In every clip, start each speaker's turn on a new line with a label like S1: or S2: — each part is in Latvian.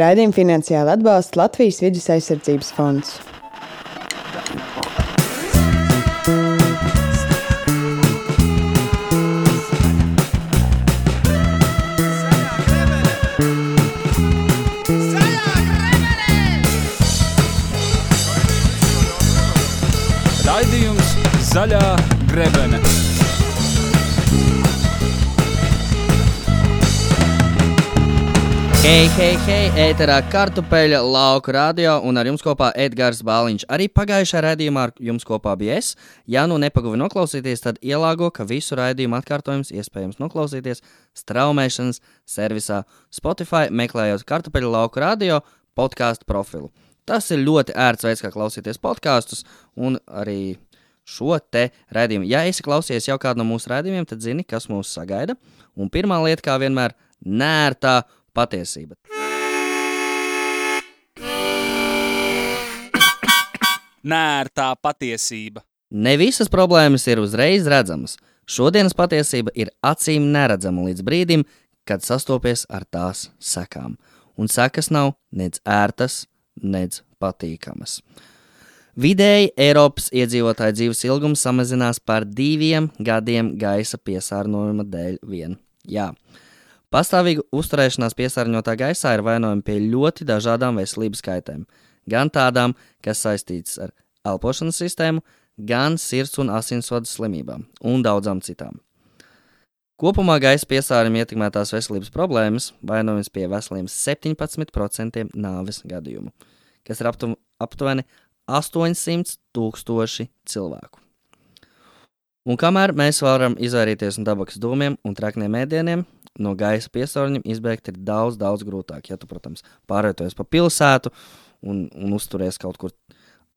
S1: Raidījumu finansiāli atbalsta Latvijas Vides aizsardzības fonds.
S2: Raidījums Zaļā grebene.
S3: Hei, ēterā Kartupeļa lauku radio un ar jums kopā Edgars Bāliņš. Arī pagājušā raidījumā ar jums kopā bija es. Ja nu nepaguvi noklausīties, tad ielāgo, ka visu raidījumu atkārtojums iespējams noklausīties straumēšanas servisā Spotify, meklējot Kartupeļa lauku radio podcastu profilu. Tas ir ļoti ērts veids, kā klausīties podkastus un arī šo te raidījumu. Ja esi klausies jau kādu no mūsu raidījumiem, tad zini, kas mūs sagaida. Un pirmā lieta, kā vienmēr, nērtā patiesība.
S2: Nērtā patiesība.
S3: Ne visas problēmas ir uzreiz redzamas. Šodienas patiesība ir acīm neredzama līdz brīdim, kad sastopies ar tās sekām. Un sekas nav nec ērtas, nec patīkamas. Vidēji Eiropas iedzīvotāju dzīves ilgums samazinās par 2 gadiem gaisa piesārņojuma dēļ vien. Jā. Pastāvīga uzturēšanās piesārņotā gaisā ir vainojama pie ļoti dažādām veselības kaitēm. Gan tādām, kas saistītas ar elpošanas sistēmu, gan sirds un asinsvadu slimībām un daudzām citām. Kopumā gaisa piesārņojuma ietekmētās veselības problēmas vainojams pie veseliem 17% nāves gadījumu, kas ir aptuveni 800,000 cilvēku. Un kamēr mēs varam izvairīties no tabakas dūmiem un trakniem ēdieniem, no gaisa piesārņojuma izbēgt ir daudz grūtāk. Ja tu, protams, pārvietojies pa pilsētu un uzturies kaut kur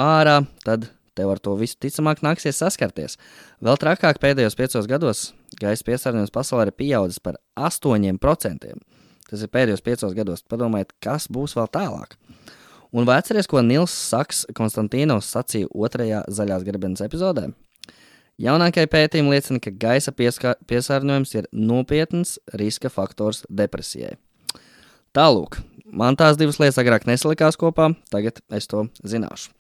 S3: ārā, tad tev ar to visu ticamāk nāksies saskarties. Vēl trakāk pēdējos 5 gados gaisa piesārņojums pasaulē ir pieaudzis par 8%. Tas ir pēdējos 5 gados. Padomājiet, kas būs vēl tālāk. Un vai atceries, ko Nils Saks Konstantīnos sacīja 2. zaļās grebenes epizodē? Jaunākie pētījumi liecina, ka gaisa piesārņojums ir nopietns riska faktors depresijai. Tālūk, man tās divas lietas agrāk nesalikās kopā, tagad es to zināšu.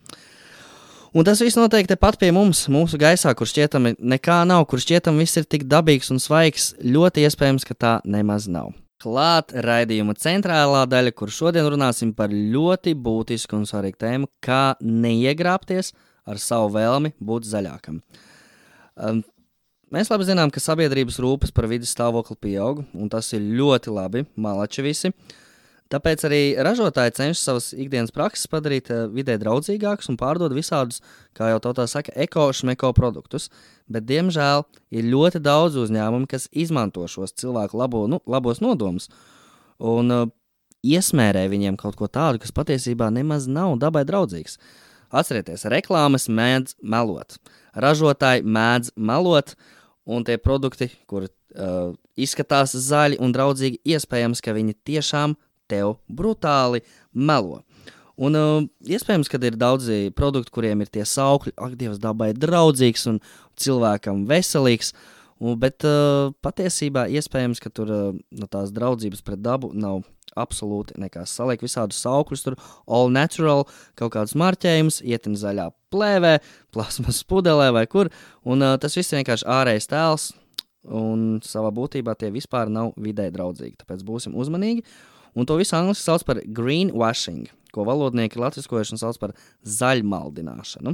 S3: Un tas viss notiek tepat pie mums, mūsu gaisā, kur šķietami nekā nav, kur šķietami viss ir tik dabīgs un svaigs, ļoti iespējams, ka tā nemaz nav. Klāt raidījuma centrālā daļa, kur šodien runāsim par ļoti būtisku un svarīgu tēmu, kā neiegrābties ar savu vēlmi būt zaļākam. Mēs labi zinām, ka sabiedrības rūpes par vides stāvokli pieaug, un tas ir ļoti labi, malači visi. Tāpēc arī ražotāji cenšas savas ikdienas prakses padarīt vidē draudzīgākus un pārdod visādus, kā jau tautā saka, eko-šmeko produktus, bet, diemžēl, ir ļoti daudz uzņēmumu, kas izmanto šos cilvēku labos nodomus un iesmērē viņiem kaut ko tādu, kas patiesībā nemaz nav dabai draudzīgs. Atcerieties, reklāmas mēdz melot, ražotāji mēdz melot, un tie produkti, kur izskatās zaļi un draudzīgi, iespējams, ka viņi tiešām tev brutāli melo. Un iespējams, ka ir daudzi produkti, kuriem ir tie saukļi, ak, Dievs, dabai draudzīgs un cilvēkam veselīgs, bet patiesībā iespējams, ka tur no tās draudzības pret dabu nav absolūti nekas. Saliek visādus saukļus, tur all natural, kaut kādus marķējumus, ietin zaļā plēvē, plasmas pudelē vai kur, un tas viss ir vienkārši ārējais tēls, un savā būtībā tie vispār nav vidē draudzīgi, tāpēc būsim uzmanīgi. Un to visu angliski sauc par greenwashing, ko valodnieki latviskojuši sauc par zaļmaldināšanu.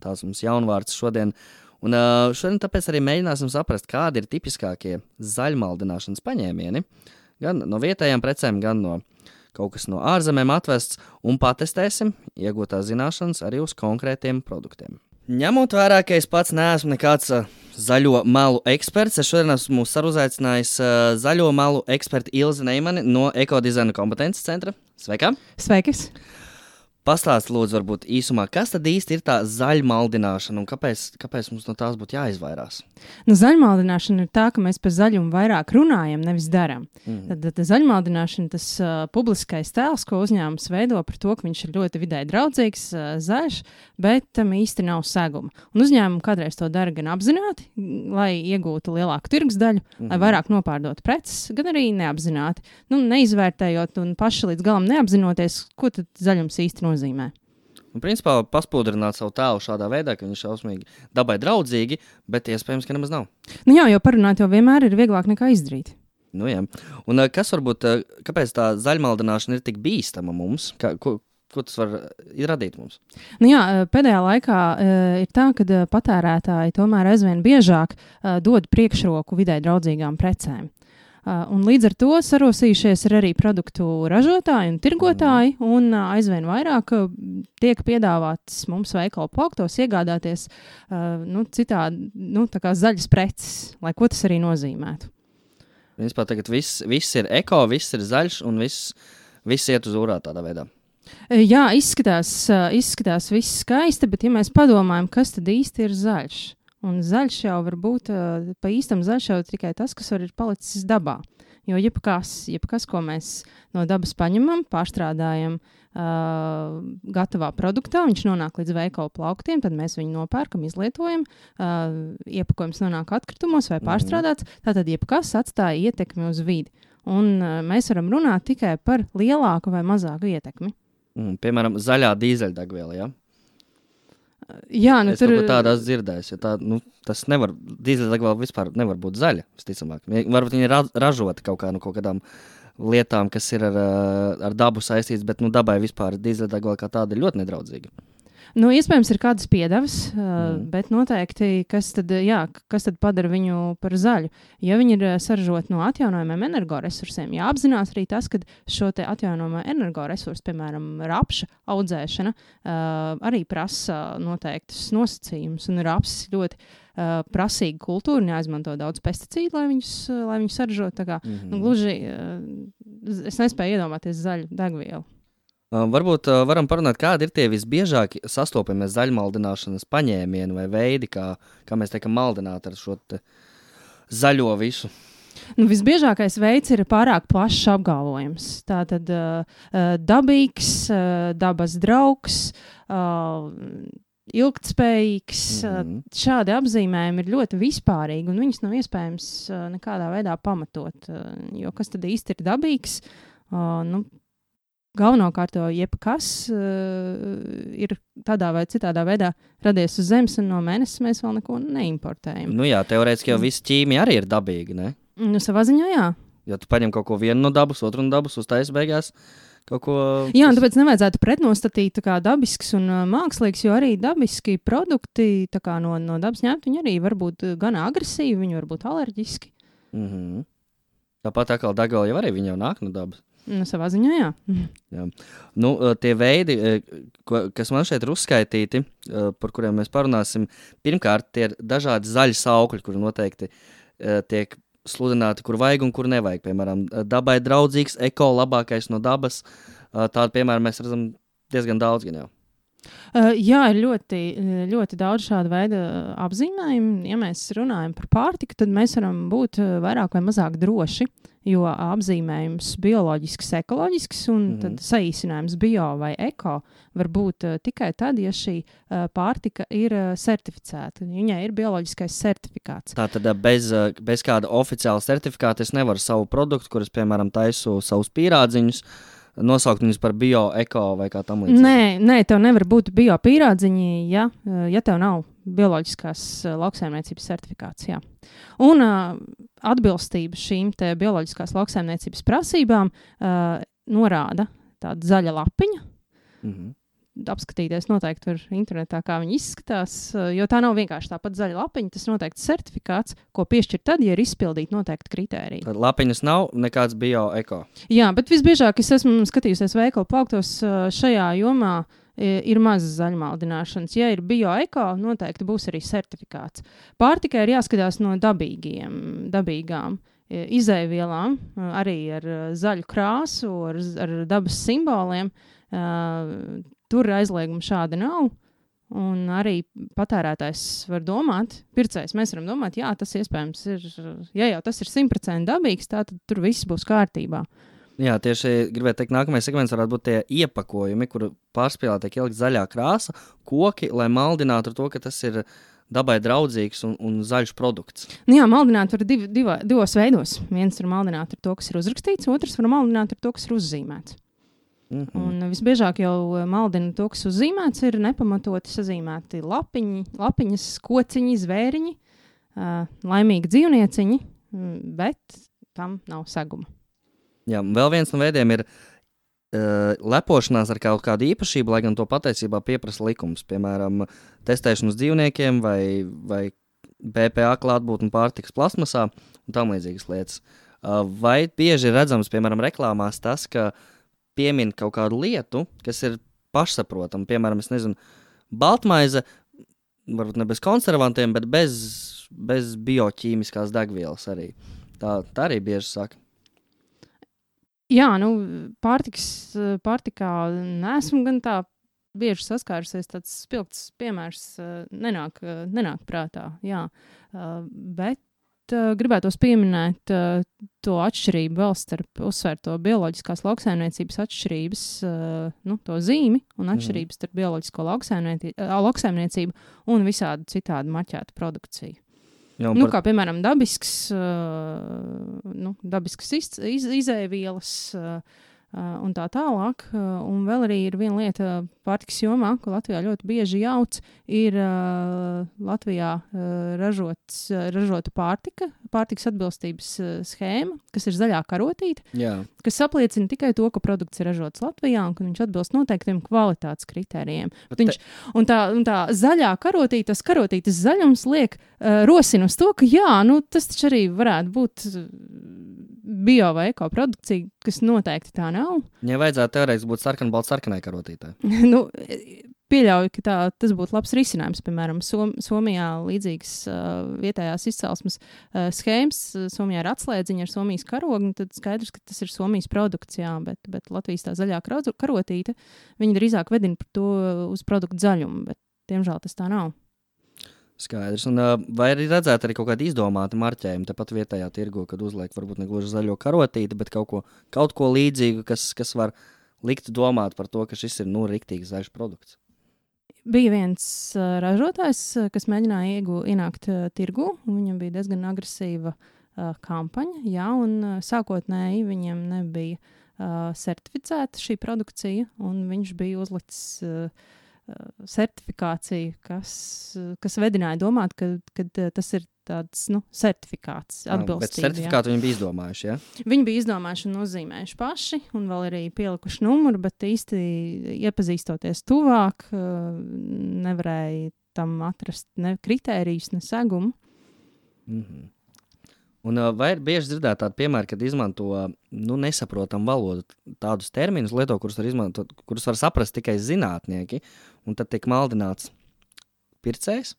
S3: Tāds mums jaunvārds šodien. Un šodien tāpēc arī mēģināsim saprast, kādi ir tipiskākie zaļmaldināšanas paņēmieni, gan no vietējām precēm, gan no kaut kas no ārzemēm atvests, un patestēsim iegūtās zināšanas arī uz konkrētiem produktiem. Ņemot vērā, ka es pats neesmu nekāds zaļo malu eksperts, es šodien esmu saruzaicinājis zaļo malu eksperti Ilzi Neimani no Ekodizaina kompetences centra. Sveika!
S4: Sveikis!
S3: Pastāst, lūdzu, varbūt īsumā, kas tad īsti ir tā zaļmaldināšana un kāpēc mums no tās būtu jāizvairās?
S4: Nu, zaļmaldināšana ir tā, ka mēs par zaļumu vairāk runājam, nevis darām. Tad zaļmaldināšana, tas publiskais tēls, ko uzņēmums veido par to, ka viņš ir ļoti vidē draudzīgs, zaļš, bet tam īsti nav seguma. Un uzņēmumi kādreiz to dara gan apzināti, lai iegūtu lielāku tirgus daļu, lai vairāk nopārdotu preces, gan arī neapzināti. Nu, neizvērtējot un paši līdz galam neapzinoties, ko tad zaļums īsti nozīmē.
S3: Un, principā, paspūdrināt savu tēlu šādā veidā, ka viņš šausmīgi dabai draudzīgi, bet iespējams, ka nemaz nav.
S4: Nu jā, jo parunāt jau vienmēr ir vieglāk nekā izdarīt.
S3: Nu jā. Un kas varbūt, kāpēc tā zaļmaldināšana ir tik bīstama mums? Ko tas var radīt mums?
S4: Nu jā, pēdējā laikā ir tā, ka patērētāji tomēr aizvien biežāk dod priekšroku vidē draudzīgām precēm. Un līdz ar to sarosījušies ir arī produktu ražotāji un tirgotāji, un aizvien vairāk tiek piedāvāts mums veikalu plauktos iegādāties citādi, tā kā zaļas preces, lai ko tas arī nozīmētu.
S3: Principā tagad viss ir eko, viss ir zaļš un viss iet uz urā tādā veidā.
S4: Jā, izskatās viss skaisti, bet ja mēs padomājam, kas tad īsti ir zaļš? Un zaļš jau var būt, pa īstam zaļš jau tikai tas, kas var ir palicis dabā. Jo jebkas, ko mēs no dabas paņemam, pārstrādājam gatavā produktā, viņš nonāk līdz veikalu plauktiem, tad mēs viņu nopērkam, izlietojam, iepakojums nonāk atkritumos vai pārstrādāts, tātad jebkas atstāja ietekmi uz vidi. Un mēs varam runāt tikai par lielāku vai mazāku ietekmi.
S3: Piemēram, zaļā dīzeļdegviela, ja?
S4: Jā,
S3: es tur tādā dzirdējis, jo tas nevar, dīzeļdegviela vispār nevar būt zaļa, visticamāk. Varbūt viņa ir ražota kaut kādām lietām, kas ir ar dabu saistīts, bet dabai vispār dīzeļdegviela kā tāda ir ļoti nedraudzīga.
S4: Nu, iespējams, ir kādas piedevas, bet noteikti, kas tad padara viņu par zaļu? Ja viņi ir saražoti no atjaunojumiem energoresursiem, jāapzinās arī tas, ka šo te atjaunojumā energoresursu, piemēram, rapša audzēšana, arī prasa noteiktus nosacījumus, un rapsis ļoti prasīga kultūra, neizmanto daudz pesticīdu, lai viņus saražot. Tā kā, gluži, es nespēju iedomāties zaļu degvielu.
S3: Varbūt varam parunāt, kādi ir tie visbiežāk sastopamie zaļmaldināšanas paņēmieni vai veidi, kā mēs tiekam maldināti ar šo zaļo visu.
S4: Visbiežākais veids ir pārāk plašs apgalvojums. Tātad dabīgs, dabas draugs, ilgtspējīgs. Šādi apzīmējumi ir ļoti vispārīgi, un viņus nav iespējams nekādā veidā pamatot. Jo kas tad īsti ir dabīgs? Galvenokārt jebkas ir tādā vai citādā veidā radies uz zemes, un no mēnesis mēs vēl neko neimportējam.
S3: Nu jā, teorētiski jau viss ķīmija arī ir dabīga, ne?
S4: Savā ziņā, jā.
S3: Ja tu paņem kaut ko vienu no dabas, otru no dabas, uztais beigās kaut ko...
S4: Jā, un tāpēc nevajadzētu pretnostatīt tā kā dabisks un mākslīgs, jo arī dabiski produkti tā kā no dabas ņemt, viņi arī var būt gan agresīvi, viņi var būt alerģiski.
S3: Tāpat atkal degviela jau arī viņi jau nāk no dabas.
S4: Savā ziņā, jā.
S3: Jā. Tie veidi, kas man šeit ir uzskaitīti, par kuriem mēs parunāsim, pirmkārt, tie ir dažādi zaļi saukļi, kuri noteikti tiek sludināti, kur vajag un kur nevajag. Piemēram, dabai draudzīgs, eko, labākais no dabas. Tādu, piemēram, mēs redzam diezgan daudz gan jau.
S4: Jā, ir ļoti, ļoti daudz šādu veidu apzīmējumu. Ja mēs runājam par pārtiku, tad mēs varam būt vairāk vai mazāk droši, jo apzīmējums bioloģisks, ekoloģisks un tad saīsinājums bio vai eko var būt tikai tad, ja šī pārtika ir certificēta. Viņai ir bioloģiskais certifikāts.
S3: Tātad bez kāda oficiāla certifikāta es nevaru savu produktu, kuras, piemēram, taisu savus pīrādziņus, nosaukt viņus par bio, eko vai kā tam līdzīgi?
S4: Nē, tev nevar būt bio pīrādziņi, ja tev nav bioloģiskās lauksaimniecības certifikāts, jā. Un atbilstība šīm te bioloģiskās lauksaimniecības prasībām norāda tāda zaļa lapiņa. Apskatīties noteikti var internetā, kā viņi izskatās, jo tā nav vienkārši tāpat zaļa lapiņa, tas noteikti certifikāts, ko piešķir tad, ja ir izpildīti noteikti kritēriji.
S3: Tad lapiņas nav nekāds bio, eko?
S4: Jā, bet visbiežāk es esmu skatījusies veikalu plauktos šajā jomā ir maz zaļmaldināšanas. Ja ir bio, eko, noteikti būs arī certifikāts. Pārtikai ir jāskatās no dabīgām izēvielām, arī ar zaļu krāsu, ar dabas simboliem. tur aizlieguma šāda nav. Un arī patērētājs var domāt, pircējs mēs varam domāt, jā, tas iespējams ir, ja jau tas ir 100% dabīgs, tad tur viss būs kārtībā.
S3: Jā, tieši gribētu teikt, nākamais segments varētu būt tie iepakojumi, kur pārspīlē tiek ielikt zaļā krāsa, koki, lai maldinātu ar to, ka tas ir dabai draudzīgs un zaļš produkts.
S4: Nu jā, maldināt var divos veidos. Viens var maldināt ar to, kas ir uzrakstīts, otrs var maldināt ar to, kas ir uzzīmēts. Un visbiežāk jau maldina to, kas uzzīmēts, ir nepamatoti sazīmēti lapiņas, kociņi, zvēriņi, laimīgi dzīvnieciņi, bet tam nav seguma.
S3: Jā, vēl viens no veidiem ir lepošanās ar kaut kādu īpašību, lai gan to patiesībā pieprasa likums. Piemēram, testēšanu uz dzīvniekiem vai BPA klātbūtni pārtikas plasmasā un tam līdzīgas lietas. Vai bieži ir redzams, piemēram, reklāmās tas, ka piemin kaut kādu lietu, kas ir pašsaprotama. Piemēram, es nezinu, baltmaize, varbūt ne bez konservantiem, bet bez bioķīmiskās degvielas arī. Tā arī bieži saka.
S4: Jā, pārtikā neesmu gan tā bieži saskārusies, tāds spilgts piemērs nenāk prātā, jā. Bet gribētos pieminēt to atšķirību vēl starp uzsvērto bioloģiskās lauksaimniecības atšķirības, to zīmi un atšķirības starp bioloģisko lauksaimniecību un visādu citādu marķētu produkciju.
S3: Jā,
S4: kā piemēram dabiskas izēvielas un tā tālāk. Un vēl arī ir viena lieta pārtikas jomā, ko Latvijā ļoti bieži jauc, ir Latvijā ražota pārtikas atbilstības schēma, kas ir zaļā karotīte, kas apliecina tikai to, ka produkts ir ražots Latvijā un ka viņš atbilst noteiktiem kvalitātes kritērijiem. Un tā zaļā karotīte, tas karotītes zaļums rosina uz to, ka tas taču arī varētu būt bio vai eko produkcija, kas noteikti tā nav.
S3: Ja vajadzētu teorētiski būt sarkanai karotītē.
S4: Pieļauju, ka tas būtu labs risinājums. Piemēram, Somijā līdzīgas vietējās izcelsmes schēmas. Somijā ir atslēdziņa ar Somijas karogu, tad skaidrs, ka tas ir Somijas produkts, jā, bet Latvijas tā zaļā karotīte, viņi drīzāk vedina par to uz produktu zaļumu, bet diemžēl tas tā nav.
S3: Skaidrs. Un, vai arī redzēt arī kaut kādu izdomātu marķējumu tepat vietējā tirgu, kad uzliek varbūt ne gluži zaļo karotīti, bet kaut ko līdzīgu, kas var likt domāt par to, ka šis ir riktīgi zaļš produkts.
S4: Bija viens ražotājs, kas mēģināja ienākt tirgu, un viņam bija diezgan agresīva kampaņa, jā, un sākotnēji viņam nebija certificēta šī produkcija, un viņš bija uzlicis certifikāciju, kas vedināja domāt, ka tas ir tāds certifikāts atbilstība. Bet
S3: certifikātu viņi bija izdomājuši, ja?
S4: Viņi bija izdomājuši un uzzīmējuši paši, un vēl arī pielikuši numuru, bet īsti iepazīstoties tuvāk, nevarēja tam atrast ne kritērijus, ne segumu.
S3: Un vai ir bieži dzirdēt tādu piemēru, kad izmanto nesaprotamu valodu, tādus terminus lieto, kurus var saprast tikai zinātnieki, un tad tiek maldināts pircējs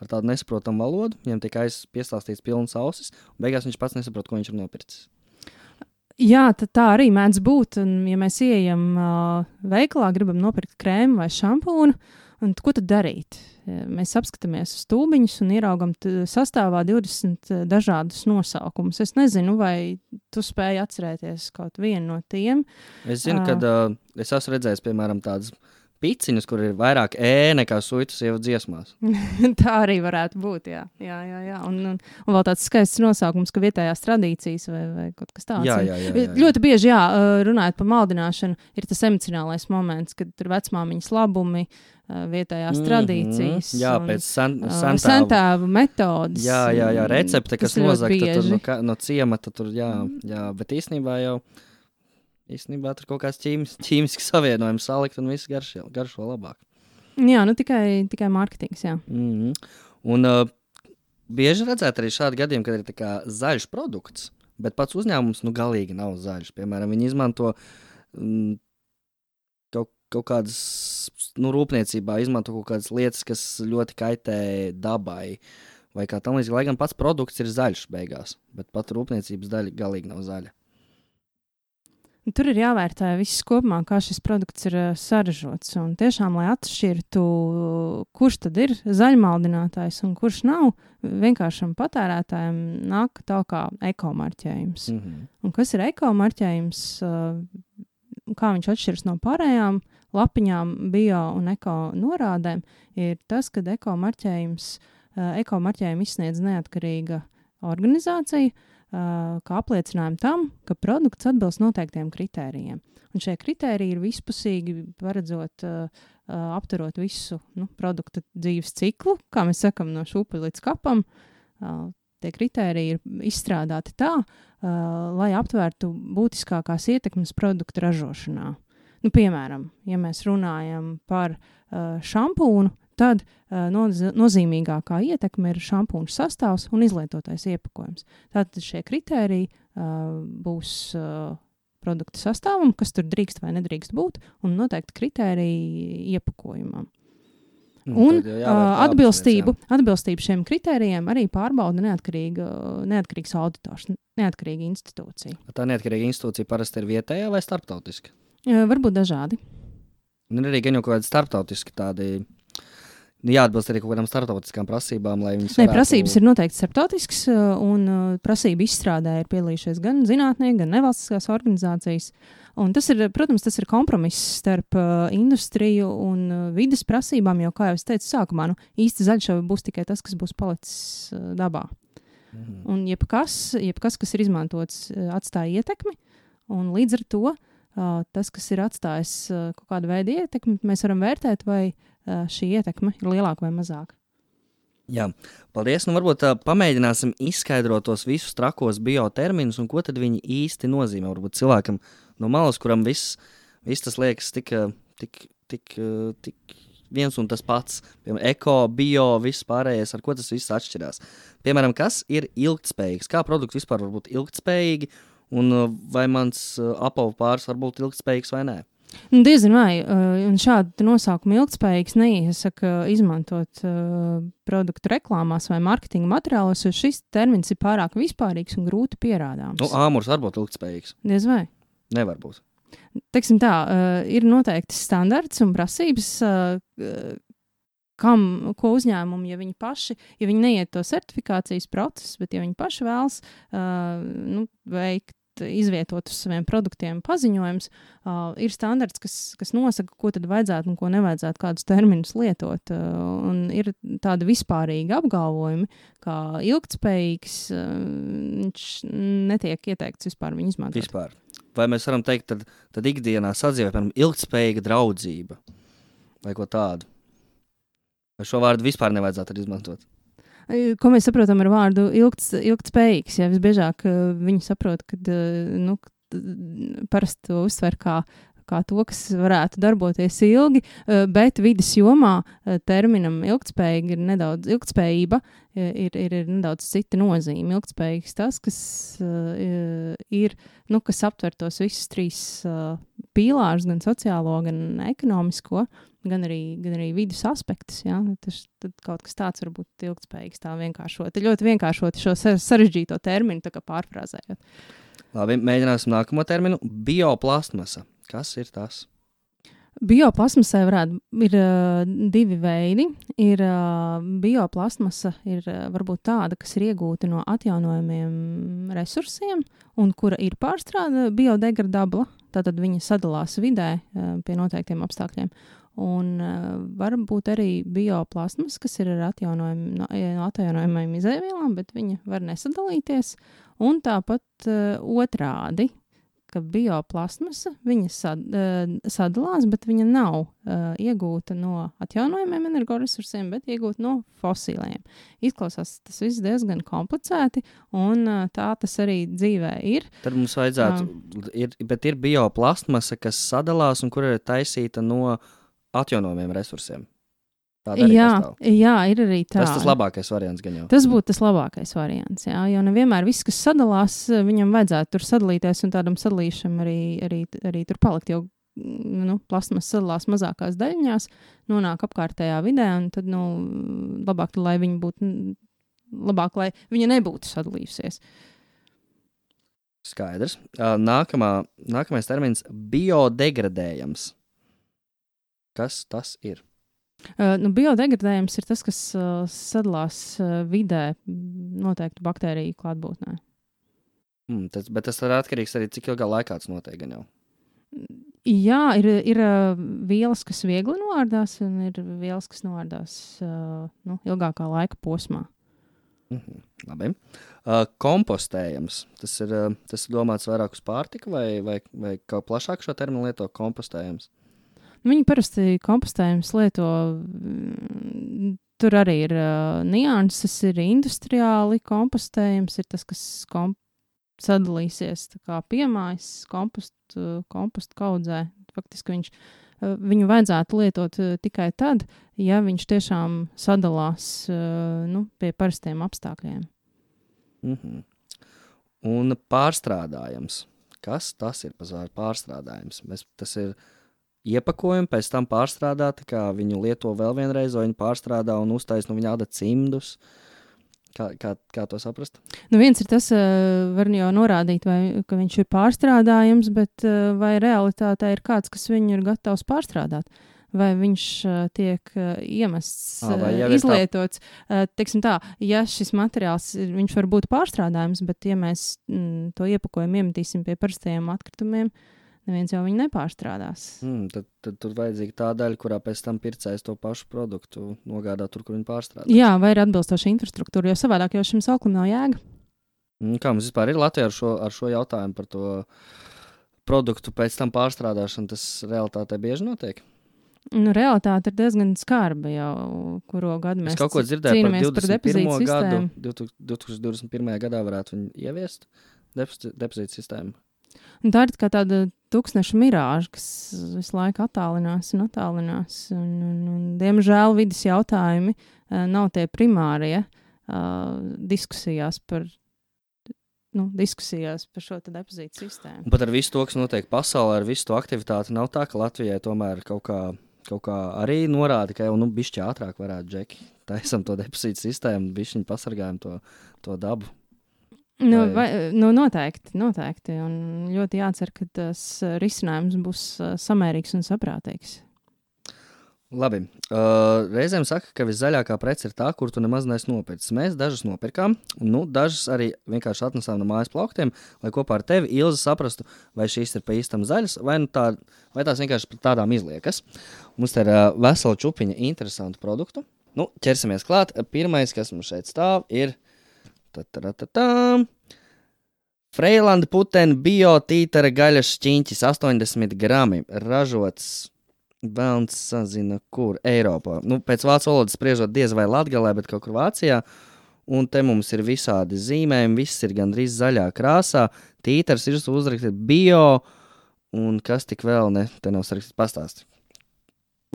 S3: ar tādu nesaprotamu valodu, viņam tiek piestāstīts pilnas ausis, un beigās viņš pats nesaprot, ko viņš ir nopircis.
S4: Jā, tā arī mēdz būt, un ja mēs ieejam veikalā, gribam nopirkt krēmu vai šampūnu, un ko tad darīt? Mēs apskatāmies uz tūbiņus un ieraugam sastāvā 20 dažādus nosaukumus. Es nezinu, vai tu spēji atcerēties kaut vienu no tiem.
S3: Es zinu, ka es esmu redzējis, piemēram, tādas piciņas, kur ir vairāk nekā suitu sievu dziesmās.
S4: Tā arī varētu būt, jā. Un vēl tāds skaists nosaukums, ka vietējās tradīcijas vai kaut kas tāds.
S3: Jā.
S4: Ļoti bieži, runājot par maldināšanu, ir tas emocionālais moments, kad ir vecmāmiņas labumi, vietējās tradīcijas.
S3: Jā, pēc
S4: sentēvu metodas.
S3: Jā, recepte, kas nozagta no ciemata tur, jā, bet īstenībā tur kaut kāds ķīmisks savienojums salikt un viss garšo labāk.
S4: Jā, tikai mārketings, jā.
S3: Un bieži redzēt arī šādi gadījumi, kad ir tā kā zaļš produkts, bet pats uzņēmums galīgi nav zaļš. Piemēram, viņi izmanto kaut kādas, rūpniecībā izmanto kaut kādas lietas, kas ļoti kaitē dabai, vai kā tam līdzīgi, lai gan pats produkts ir zaļš beigās, bet pat rūpniecības daļa galīgi nav zaļa.
S4: Tur ir jāvērtē viss kopumā, kā šis produkts ir saražots. Un tiešām, lai atšķirtu, kurš tad ir zaļmaldinātājs un kurš nav, vienkāršam patērētājiem nāk tā kā ekomarķējums. Un kas ir ekomarķējums, kā viņš atšķiras no pārējām lapiņām, bio un eko norādēm, ir tas, ka ekomarķējumu izsniedz neatkarīga organizācija, kā apliecinājumu tam, ka produkts atbilst noteiktiem kritērijiem. Un šie kritēriji ir vispusīgi, paredzot, apturot visu produkta dzīves ciklu, kā mēs sakam, no šūpuļa līdz kapam. Tie kritēriji ir izstrādāti tā, lai aptvērtu būtiskākās ietekmes produktu ražošanā. Piemēram, ja mēs runājam par šampūnu, tad nozīmīgākā ietekme ir šampūna sastāvs un izlietotais iepakojums. Tātad šie kritēriji būs produkta sastāvam, kas tur drīkst vai nedrīkst būt, un noteikti kritēriji iepakojumam. Un atbilstību šiem kritērijiem arī pārbauda neatkarīgs auditors, neatkarīga institūcija.
S3: Tā neatkarīga institūcija parasti ir vietējā vai starptautiska?
S4: Varbūt dažādi.
S3: Un arī gan jau kaut kādi starptautiski tādi, jāatbilst arī kaut kādām starptautiskām prasībām, lai viņas varētu...
S4: Prasības ir noteikti starptautiskas, un prasību izstrādē ir piedalījušies gan zinātnieki, gan nevalstiskās organizācijas. Un tas ir, protams, kompromiss starp industriju un vides prasībām, jo, kā jau es teicu sākumā, īsti zaļšava būs tikai tas, kas būs palicis dabā. Un jebkas, kas ir izmantots, atstāja ietekmi, un līdz ar to tas, kas ir atstājis kaut kādu veidu ietekmi, mēs varam vērtēt, vai šī ietekme ir lielāka vai mazāka.
S3: Jā, paldies. Varbūt pamēģināsim izskaidrot tos visus trakos bioterminus un ko tad viņi īsti nozīmē. Varbūt cilvēkam no malas, kuram viss tas liekas tik viens un tas pats. Piemēram, eko, bio, viss pārējais, ar ko tas viss atšķirās. Piemēram, kas ir ilgtspējīgs? Kā produkti vispār var būt ilgtspējīgi? Un vai mans apavu pāris var būt ilgtspējīgs vai nē?
S4: Diezin vai, un šādu nosaukumu ilgtspējīgs neiesaka izmantot produktu reklāmās vai marketinga materiālos, jo šis termins ir pārāk vispārīgs un grūti pierādāms.
S3: Āmurs var būt ilgtspējīgs?
S4: Diez vai?
S3: Nevar būt.
S4: Teiksim tā, ir noteikti standarts un prasības, ko uzņēmumi, ja viņi neiet to certifikācijas procesu, bet ja viņi paši vēlas veikt, izvietot uz saviem produktiem paziņojums, ir standarts, kas nosaka, ko tad vajadzētu un ko nevajadzētu, kādus terminus lietot. Un ir tādi vispārīgi apgalvojumi, kā ilgtspējīgs, viņš netiek ieteikts vispār viņu izmantot.
S3: Vispār. Vai mēs varam teikt, tad ikdienā sadzīvē, piemēram, ilgtspējīga draudzība vai ko tādu? Vai šo vārdu vispār nevajadzētu izmantot?
S4: Ko mēs saprotam ar vārdu ilgtspējīgs? Ja visbiežāk viņi saprot, ka parasti to uztver kā to, kas varētu darboties ilgi, bet vides jomā terminam ilgtspējība ir nedaudz cita nozīme. Ilgtspējīgs tas, kas ir, kas aptver tos visus trīs pīlārus, gan sociālo, gan ekonomisko, gan arī vidas aspektus. Ja? Tad kaut kas tāds var būt ilgtspējīgs, tā vienkāršot. Ļoti vienkāršot šo sarežģīto terminu, tā kā pārfrāzējot.
S3: Labi, mēģināsim nākamo terminu. Bioplastmasa. Kas ir tas?
S4: Bioplastmasai ir divi veidi. Bioplastmasa ir varbūt tāda, kas ir iegūta no atjaunojumiem resursiem un kura ir pārstrāde biodegradabla. Tātad viņa sadalās vidē pie noteiktiem apstākļiem. Un var būt arī bioplastmas, kas ir ar atjaunojumiem izēvielām, bet viņa var nesadalīties. Un tāpat otrādi, ka bioplastmasa viņa sadalās, bet viņa nav iegūta no atjaunojumiem energoresursiem, bet iegūta no fosīliem. Izklausās tas viss diezgan komplicēti, un tā tas arī dzīvē ir.
S3: Tad mums vajadzētu, bet ir bioplastmasa, kas sadalās un kur ir taisīta no atjaunojumiem resursiem.
S4: Jā, ir arī tā.
S3: Tas labākais variants gan jau.
S4: Tas būtu tas labākais variants, jā, jo nevienmēr viss, kas sadalās, viņam vajadzētu tur sadalīties un tādam sadalīšam arī tur palikt, jo plastmas sadalās mazākās daļiņās, nonāk apkārtējā vidē, un tad, labāk, lai viņa nebūtu sadalījusies.
S3: Skaidrs. Nākamais termins - biodegradējams. Kas tas ir?
S4: Biodegradējums ir tas, kas sadalās vidē noteikti baktēriju klātbūtnē.
S3: Bet tas ir atkarīgs arī, cik ilgā laikā tas notiek gan jau.
S4: Jā, ir vielas, kas viegli noārdās, un ir vielas, kas noārdās ilgākā laika posmā.
S3: Labi. Kompostējams. Tas ir domāts vairāk uz pārtiku vai kā plašāk šo terminu lieto kompostējams?
S4: Viņi parasti kompostējums lieto, tur arī ir nianses, ir industriāli kompostējums, ir tas, kas sadalīsies tā kā piemājas kompostu kaudzē. Faktiski viņu vajadzētu lietot tikai tad, ja viņš tiešām sadalās pie parastiem apstākļiem.
S3: Un pārstrādājams. Kas tas ir pārstrādājums? Tas ir iepakojumi, pēc tam pārstrādāti, kā viņu lieto vēl vienreiz, vai viņu pārstrādā un uztais no viņa āda cimdus. Kā to saprast?
S4: Viens ir tas, var jau norādīt, ka viņš ir pārstrādājams, bet vai realitātē ir kāds, kas viņu ir gatavs pārstrādāt? Vai viņš tiek iemests, izlietots? Teiksim tā, ja šis materiāls, viņš var būt pārstrādājams, bet ja mēs to iepakojumu iemetīsim pie parastajiem atkritumiem, neviens jau viņu nepārstrādās.
S3: Tad tur vajadzīga tā daļa, kurā pēc tam pircējs to pašu produktu nogādā tur, kur viņi pārstrādās.
S4: Jā, vai ir atbilstoša infrastruktūra, jo savādāk jau šim sauklim nav jēga.
S3: Kā mums vispār ir Latvijā ar šo jautājumu par to produktu pēc tam pārstrādāšanu, tas realitātē bieži notiek?
S4: Realitāte ir diezgan skarba jau, kuro gadu mēs cīnāmies par depozītu sistēmu.
S3: 2021. gadā varētu viņu ieviest depozītu sistēmu.
S4: Un tā ir kā tāda tūkstneša mirāža, kas visu laiku attālinās. Un, diemžēl vidas jautājumi nav tie primārie diskusijās par šo depozītu sistēmu.
S3: Un pat ar visu to, kas notiek pasaulē, ar visu to aktivitāti, nav tā, ka Latvijai tomēr kaut kā arī norāda, ka jau bišķi ātrāk varētu džeki. Taisam to depozītu sistēmu, bišķiņi pasargājam to dabu.
S4: Noteikti. Un ļoti jācer, ka tas risinājums būs samērīgs un saprātīgs.
S3: Labi. Reizēm saka, ka viszaļākā prece ir tā, kur tu nemaz neesi nopircis. Mēs dažas nopirkām, dažas arī vienkārši atnesām no mājas plauktiem, lai kopā ar tevi, Ilze, saprastu, vai šīs ir pa īstam zaļas, vai tās vienkārši tādām izliekas. Mums te ir vesela čupiņa interesantu produktu. Ķersimies klāt. Pirmais, kas mums šeit stāv, ir Freilanda putena biotītara gaļas šķiņķis 80 grami, ražots velns sazina, kur Eiropā. Pēc vācu valodas spriežot diez vai Latgalē, bet kaut kur Vācijā. Un te mums ir visādi zīmējumi, viss ir gandrīz zaļā krāsā. Tītars ir uzrakstīts bio, un kas tik vēl te nav sarakstīts pastāstīt.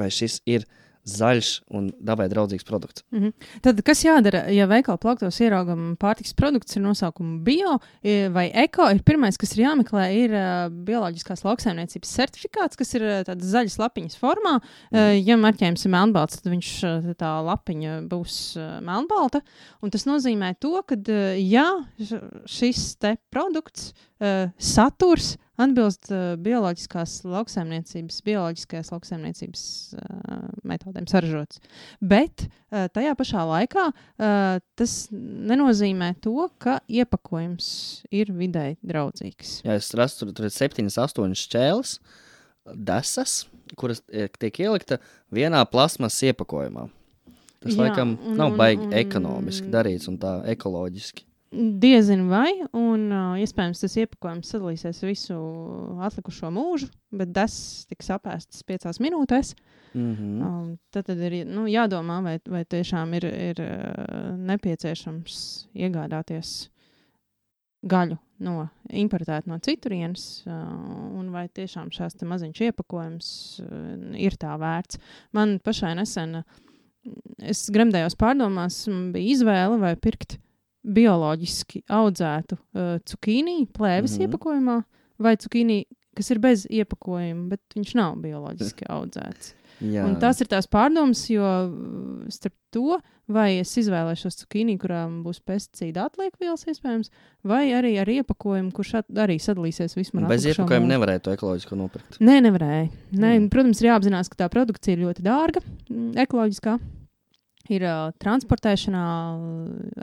S3: Vai šis ir zaļš un dabai draudzīgs produkts.
S4: Tad, kas jādara, ja veikala plauktos ieraugam pārtikas produkts ar nosaukumu bio vai eko, ir pirmais, kas ir jāmeklē, ir bioloģiskās lauksaimniecības certifikāts, kas ir tādas zaļas lapiņas formā. Ja marķējums ir melnbalts, tad tā lapiņa būs melnbalta. Un tas nozīmē to, ka ja šis te produkts saturs atbilst bioloģiskajās lauksaimniecības metodēm saražots. Bet tajā pašā laikā tas nenozīmē to, ka iepakojums ir videi draudzīgs.
S3: Jā, es rastu, tur ir 7-8 šķēles, desas, kuras tiek ielikta vienā plasmas iepakojumā. Tas laikam nav baigi ekonomiski darīts un tā ekoloģiski.
S4: Diezin vai, un iespējams tas iepakojums sadalīsies visu atlikušo mūžu, bet desas tiks apēstas 5 minūtēs. Tad ir jādomā, vai tiešām ir nepieciešams iegādāties gaļu importēt no citurienes, un vai tiešām šās te maziņš iepakojums ir tā vērts. Man pašai nesen, es gremdējos pārdomās, bija izvēle vai pirkt bioloģiski audzētu cukīnī plēves iepakojumā vai cukīnī, kas ir bez iepakojuma, bet viņš nav bioloģiski audzēts.
S3: Jā.
S4: Un tas ir tās pārdomas, jo starp to, vai es izvēlēšos cukīnī, kurām būs pesticīda atliekvielas iespējams, vai arī ar iepakojumu, kurš arī sadalīsies vismaz
S3: Bez iepakojuma nevarēja to ekoloģisko nopirkt.
S4: Nē, nevarēja. Protams, ir jāapzinās, ka tā produkcija ir ļoti dārga, ekoloģiskā. Ir transportēšanā,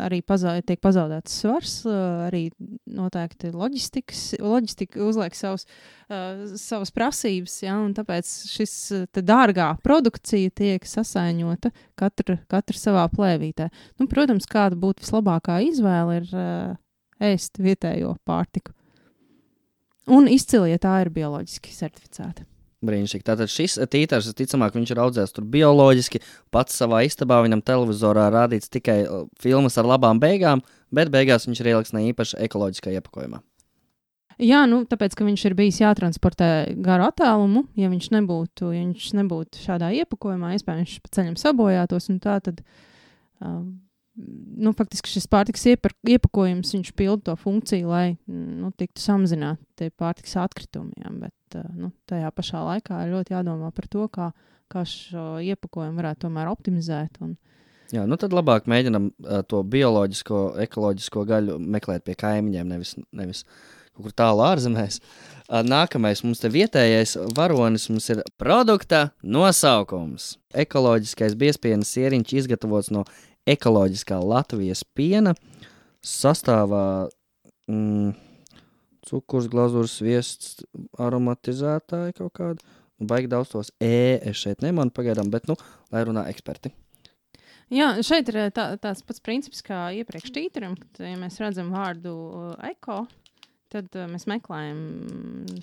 S4: arī tiek pazaudēts svars, arī noteikti loģistika uzliek savas prasības, ja, un tāpēc šis dārgā produkcija tiek sasaiņota katra savā plēvītē. Nu, protams, kāda būtu vislabākā izvēle ir ēst vietējo pārtiku. Un izcili, ja tā ir bioloģiski certificēta.
S3: Brīnišķīgi. Tātad šis tītars, ticamāk, viņš ir audzēts tur bioloģiski, pats savā istabā, viņam televizorā rādīts tikai filmas ar labām beigām, bet beigās viņš ir ieliks ne īpaši ekoloģiskā iepakojumā.
S4: Jā, tāpēc, ka viņš ir bijis jātransportē garu attālumu, ja viņš nebūtu šādā iepakojumā, iespējams, viņš pa ceļam sabojātos, un tā tad, faktiski šis pārtikas iepakojums, viņš pilda to funkciju, lai, tiktu samazināt tie pārtikas atkritumi, ja, bet, tajā pašā laikā ir ļoti jādomā par to, kā šo iepakojumu varētu tomēr optimizēt.
S3: Jā, tad labāk mēģinam to bioloģisko, ekoloģisko gaļu meklēt pie kaimiņiem, nevis kaut kur tālu ārzemēs. Nākamais mums te vietējais varonis mums ir produkta nosaukums. Ekoloģiskais biezpienas sieriņš izgatavots no ekoloģiskā Latvijas piena, sastāvā cukurs, glazūras, sviests, aromatizētāji kaut kādi. Baigi daudz tos es šeit nemanu pagaidām, bet, lai runā eksperti.
S4: Jā, šeit ir tāds pats princips kā iepriekš tītaram, kad, ja mēs redzam vārdu eko, tad mēs meklējam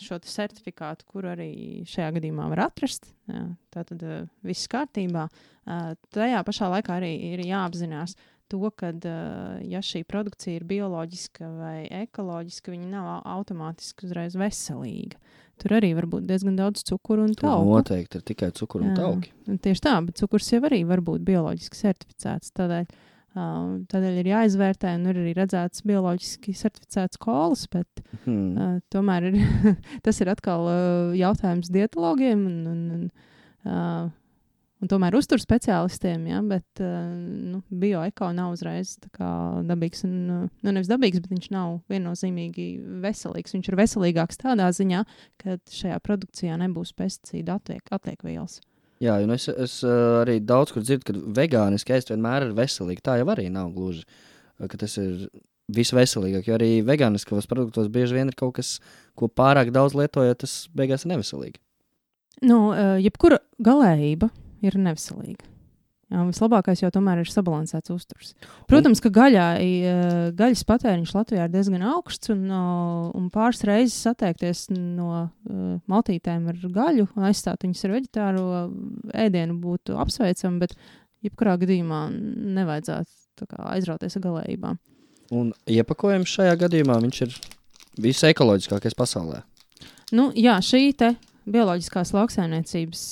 S4: šo certifikātu, kur arī šajā gadījumā var atrast. Jā, tātad viss kārtībā. Tajā pašā laikā arī ir jāapzinās to, ka, ja šī produkcija ir bioloģiska vai ekoloģiska, viņa nav automātiski uzreiz veselīga. Tur arī var būt diezgan daudz cukuru un tauku.
S3: Noteikti ir tikai cukuru un tauki.
S4: Tieši tā, bet cukurs jau arī var būt bioloģiski certificēts. Tādēļ ir jāizvērtē, un ir arī redzēts bioloģiski certificēts kolas, bet tomēr tas ir atkal jautājums dietologiem un tomēr uzturs speciālistiem, ja, bet bioeko nav uzreiz tā kā dabīgs, nevis dabīgs, bet viņš nav viennozīmīgi veselīgs. Viņš ir veselīgāks tādā ziņā, ka šajā produkcijā nebūs pesticīdu atliekvielas.
S3: Jā, un es arī daudz kur dzirdu, ka vegāniski ēst vienmēr ir veselīgi. Tā jau arī nav gluži, ka tas ir visveselīgāk, jo arī vegāniskos produktos bieži vien ir kaut kas, ko pārāk daudz lietojot, tas beigās ir neveselīgi.
S4: Jebkura galējība ir neveselīga. Jā, vislabākais jau tomēr ir sabalansēts uzturs. Protams, ka gaļas patēriņš Latvijā ir diezgan augsts, un pāris reizes atteikties no maltītēm ar gaļu un aizstāt viņus ar veģetāro ēdienu būtu apsveicami, bet jebkurā gadījumā nevajadzētu aizrauties ar galējībām.
S3: Un iepakojums šajā gadījumā viņš ir visekoloģiskākais pasaulē.
S4: Jā, šī te bioloģiskās lauksaimniecības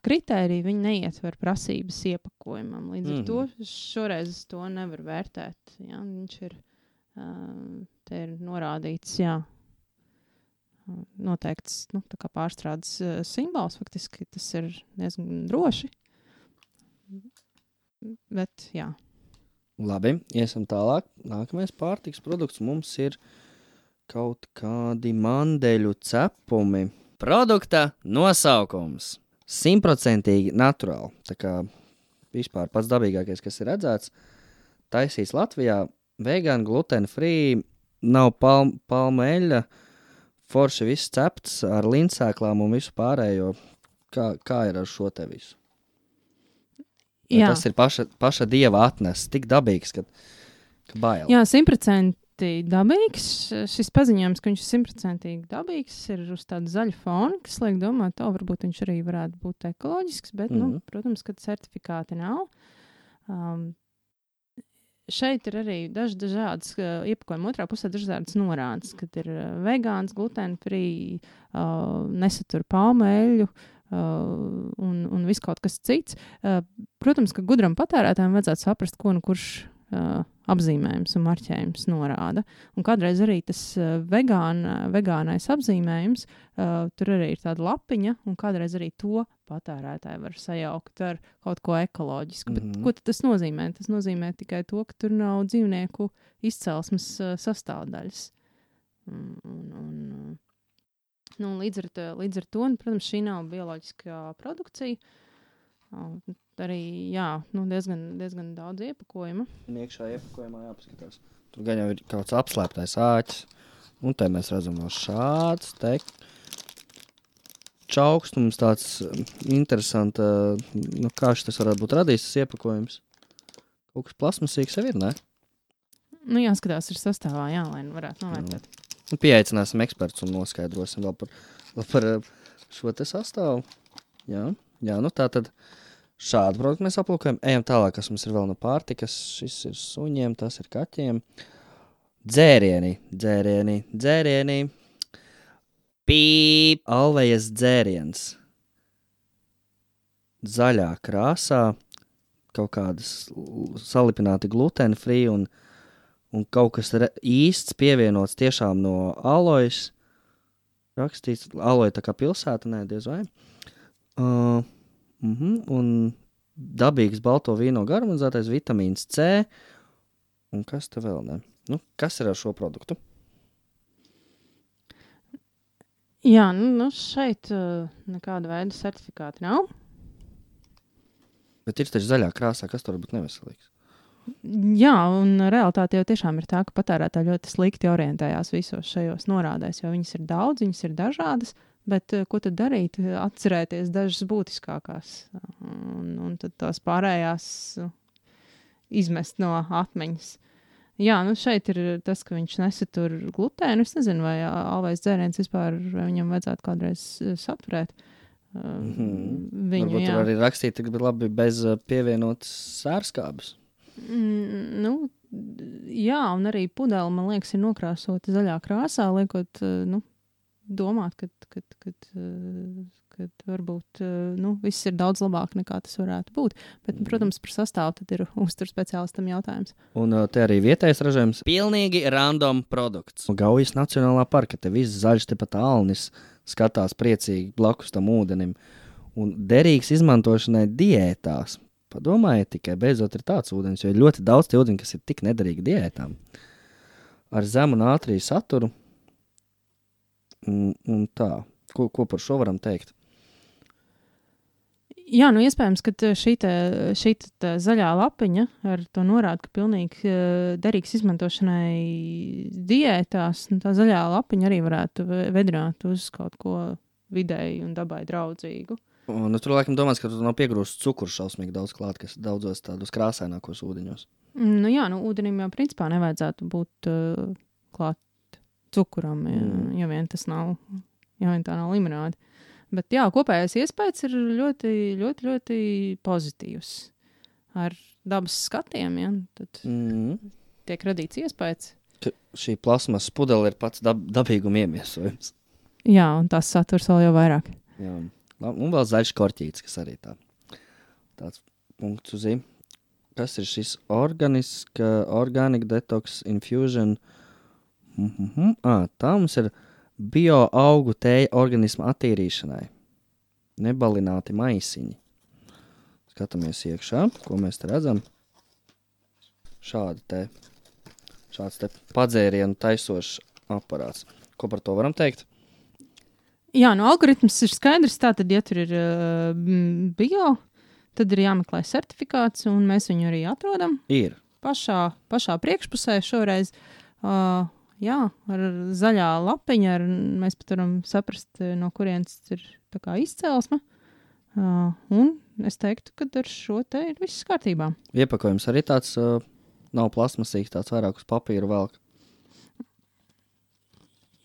S4: kritērija, viņi neietver prasības iepakojumam. Līdz ar to šoreiz to nevar vērtēt. Jā, viņš ir, te ir norādīts, noteikts, tā kā pārstrādes simbols, faktiski tas ir diezgan droši. Bet, jā.
S3: Labi, iesim tālāk. Nākamais pārtiks produkts mums ir kaut kādi mandeļu cepumi. Produkta nosaukums 100% naturāli. Tā kā vispār pats dabīgākais, kas ir redzēts, taisīts Latvijā, vegan, gluten free, nav palmu eļļa, forši viss cepts ar lindsēklām un visu pārējo. Kā ir ar šo te visu? Tas ir paša dieva atnests, tik dabīgs, ka bail.
S4: Jā, 100% dabīgs. Šis paziņojums, ka viņš ir 100% dabīgs, ir uz tāda zaļa fona, kas liek domāt, varbūt viņš arī varētu būt ekoloģisks, bet, protams, ka certifikāti nav. Šeit ir arī dažādas iepakojuma otrā pusē dažādas norādes, kad ir vegāns, gluten free, nesatur palmu eļļu, un viss kaut kas cits. Protams, ka gudram patērētājiem vajadzētu saprast, ko kurš apzīmējums un marķējums norāda. Un kādreiz arī tas vegānais apzīmējums, tur arī ir tāda lapiņa, un kādreiz arī to patērētāji var sajaukt ar kaut ko ekoloģisku. Bet ko tad tas nozīmē? Tas nozīmē tikai to, ka tur nav dzīvnieku izcelsmes sastāvdaļas. Līdz ar to, protams, šī nav bioloģiskā produkcija. Arī, diezgan daudz iepakojuma.
S3: Iekšā iepakojumā jāpaskatās. Tur gan jau ir kaut kāds apslēptais āķis. Un te mēs redzam vēl šāds te čaukstums, tāds interesants, kā šis varētu būt radījis tas iepakojums. Kaut kas plasmasīgs jau ir, ne?
S4: Jāskatās ir sastāvā, lai varētu novērtēt.
S3: Pieaicināsim ekspertus un noskaidrosim vēl par šo te sastāvu. Jā, tā tad šādu produktu mēs aplūkojam. Ejam tālāk, kas mums ir vēl no pārtikas. Šis ir suņiem, tas ir kaķiem. Dzērieni. Pīp, Alvejas dzēriens. Zaļā krāsā, kaut kādas salipināti gluten free un kaut kas īsts pievienots tiešām no alojas. Rakstīts, aloja tā kā pilsēta, nē, diez vai. Un dabīgs balto vīno garumizētais vitamīns C. Un kas te vēl ne? Kas ir ar šo produktu?
S4: Jā, šeit nekāda veida certifikāti nav.
S3: Bet ir taču zaļā krāsā, kas tur varbūt neveselīgs?
S4: Jā, un realitāte jau tiešām ir tā, ka patērētāji ļoti slikti orientējās visos šajos norādēs, jo viņas ir daudz, viņas ir dažādas, bet ko tad darīt? Atcerēties dažas būtiskākās, un tad tās pārējās izmest no atmiņas. Jā, šeit ir tas, ka viņš nesatur glutēnu. Es nezinu, vai alvais dzēriens vispār viņam vajadzētu kādreiz saturēt.
S3: Varbūt tur arī rakstīt, ka labi bez pievienotas sērskābes.
S4: Jā, un arī pudele, man liekas, ir nokrāsota zaļā krāsā, liekot, domāt, ka varbūt viss ir daudz labāk nekā tas varētu būt. Bet, protams, par sastāvu tad ir uzturu speciālistam jautājums.
S3: Un te arī vietējais ražojums. Pilnīgi random produkts. Gaujas Nacionālā parka, te viss zaļš, te pat alnis skatās priecīgi blakus tam ūdenim. Un derīgs izmantošanai diētās. Padomājiet tikai, beidzot ir tāds ūdens, jo ir ļoti daudz tie ūdeņi, kas ir tik nederīgi diētām. Ar zemu nātriju saturu. Un tā. Ko par šo varam teikt?
S4: Jā, iespējams, ka šī zaļā lapiņa ar to norāda, ka pilnīgi derīgs izmantošanai diētās, tā zaļā lapiņa arī varētu vedināt uz kaut ko vidēji un dabai draudzīgu.
S3: Un tur laikam domās, ka tur nav piegrūsts cukurs šausmīgi daudz klāt, kas daudzos tādos krāsainākos ūdeņos.
S4: Ūdenim jau principā nevajadzētu būt klāt cukuram, ja vien tas nav, ja vien tā nav limonāde. Bet jā, kopējais iespējas ir ļoti, ļoti, ļoti pozitīvs. Ar dabas skatiem, tad tiek radīts iespējas.
S3: Ka šī plasmas pudele ir pats dabīguma iemiesojums.
S4: Jā, un tās saturs vēl jau vairāk.
S3: Jā. Un vēl zaļš korķītis, kas arī tāds punkts uz i. Kas ir šis Organic Detox Infusion? Tā mums ir bioaugu tēja organisma attīrīšanai. Nebalināti maisiņi. Skatāmies iekšā, ko mēs te redzam. Šāds te padzērienu taisošs aparāts. Ko par to varam teikt?
S4: Jā, algoritms ir skaidrs. Tātad, ja tur ir bio, tad ir jāmeklē certifikāts, un mēs viņu arī atrodam.
S3: Ir.
S4: Pašā priekšpusē šoreiz. Jā, ar zaļā lapiņa, mēs pat varam saprast, no kurienes ir tā kā izcelsme. Un es teiktu, ka ar šo te ir viss kārtībā.
S3: Iepakojums arī tāds nav plasmasīgs, tāds vairāk uz papīra velk.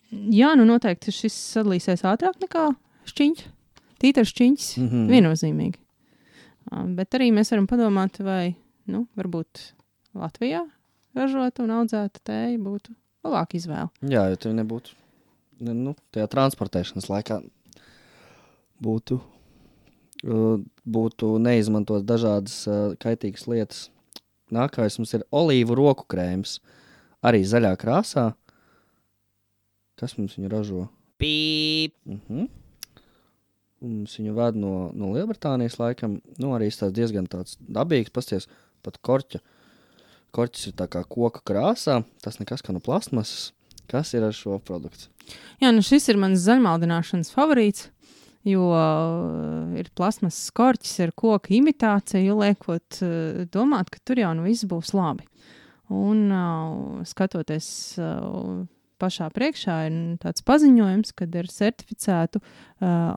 S4: Jā, noteikti šis sadalīsies ātrāk nekā šķiņķi. Tītars šķiņķis, viennozīmīgi. Bet arī mēs varam padomāt, vai, varbūt Latvijā ražota un audzēta tēja būtu labāka izvēle.
S3: Jā, jo tev nebūtu, tajā transportēšanas laikā būtu neizmantot dažādas kaitīgas lietas. nākamais mums ir olīvu roku krēms. Arī zaļā krāsā. Kas mums viņu ražo? Pīp! Mums viņu ved no Lielbritānijas laikam. Nu, arī tas diezgan tāds dabīgs. Pasties, pat korķa. Korķis ir tā kā koka krāsā. Tas nekas kā no plastmasas. Kas ir ar šo produktu?
S4: Jā, nu šis ir mans zaļmaldināšanas favorīts, jo ir plasmasas korķis, ir koka imitācija, liekot domāt, ka tur jau nu viss būs labi. Un skatoties pašā priekšā ir tāds paziņojums, kad ir certificētu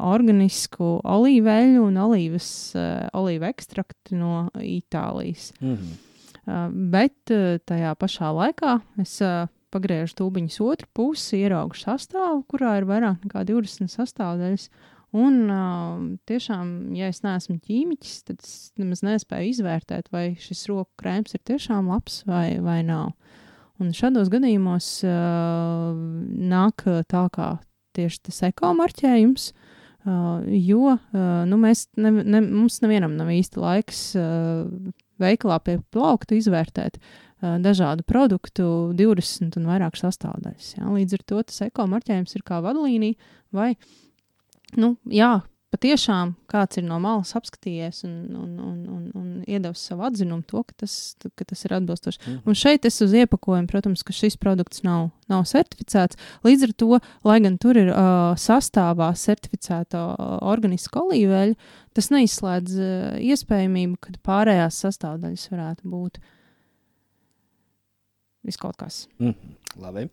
S4: organisku olīveļu un olīvu ekstraktu no Itālijas. Bet tajā pašā laikā es pagriežu tūbiņas otru pusi, ieraugu sastāvu, kurā ir vairāk nekā 20 sastāvdaļas. Un tiešām, ja es neesmu ķīmiķis, tad es nemaz nespēju izvērtēt, vai šis roku krēms ir tiešām labs vai nav. Un šādos gadījumos nāk tā kā tieši tas ekomarķējums, jo mums nevienam nav īsti laiks veikalā pie plaukta izvērtēt dažādu produktu 20 un vairāk sastāvdaļas. Ja? Līdz ar to tas ekomarķējums ir kā vadlīnija vai, patiešām kāds ir no malas apskatījies un iedevis savu atzinumu to, ka tas ir atbilstoši. Un šeit es uz iepakojumu, protams, ka šis produkts nav certificēts. Līdz ar to, lai gan tur ir sastāvā certificēta organiska olīveļa, tas neizslēdz iespējamību, ka pārējās sastāvdaļas varētu būt viskaut kas.
S3: Labi.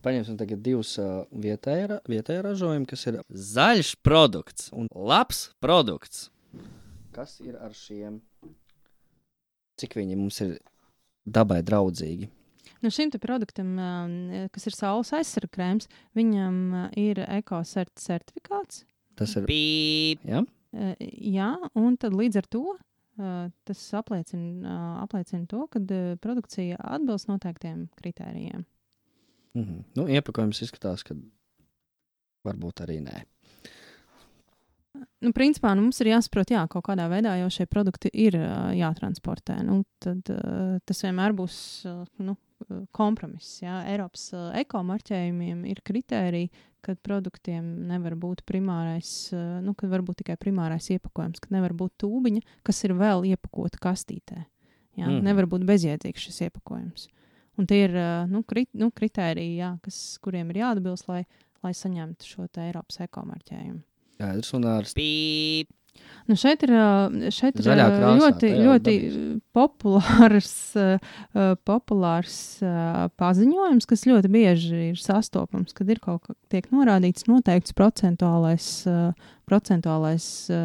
S3: Paņemsim tagad divus vietējā ražojumi, kas ir zaļš produkts un labs produkts. Kas ir ar šiem? Cik viņi mums ir dabai draudzīgi?
S4: No šim te produktam, kas ir saules aizsarga krēms, viņam ir ekocert certifikāts.
S3: Tas ir pīp, ja?
S4: Jā, un tad līdz ar to tas apliecina to, ka produkcija atbilst noteiktiem kritērijiem.
S3: Nu, iepakojums izskatās, ka varbūt arī nē.
S4: Nu, principā, mums ir jāsaprot, kaut kādā veidā jau šie produkti ir jātransportē. Nu, tad tas vienmēr būs kompromiss. Jā. Eiropas ekomarķējumiem ir kritēriji, kad produktiem nevar būt primārais, kad var būt tikai primārais iepakojums, kad nevar būt tūbiņa, kas ir vēl iepakota kastītē. Jā. Nevar būt bezjēdzīgs šis iepakojums. Un tie ir kritēriji, kuriem ir jāatbilst, lai saņemtu šo te Eiropas ekomarķējumu.
S3: Un ar pīp.
S4: Nu šeit ir ļoti populārs paziņojums, kas ļoti bieži ir sastopams, kad ir tiek norādīts noteikts procentuālais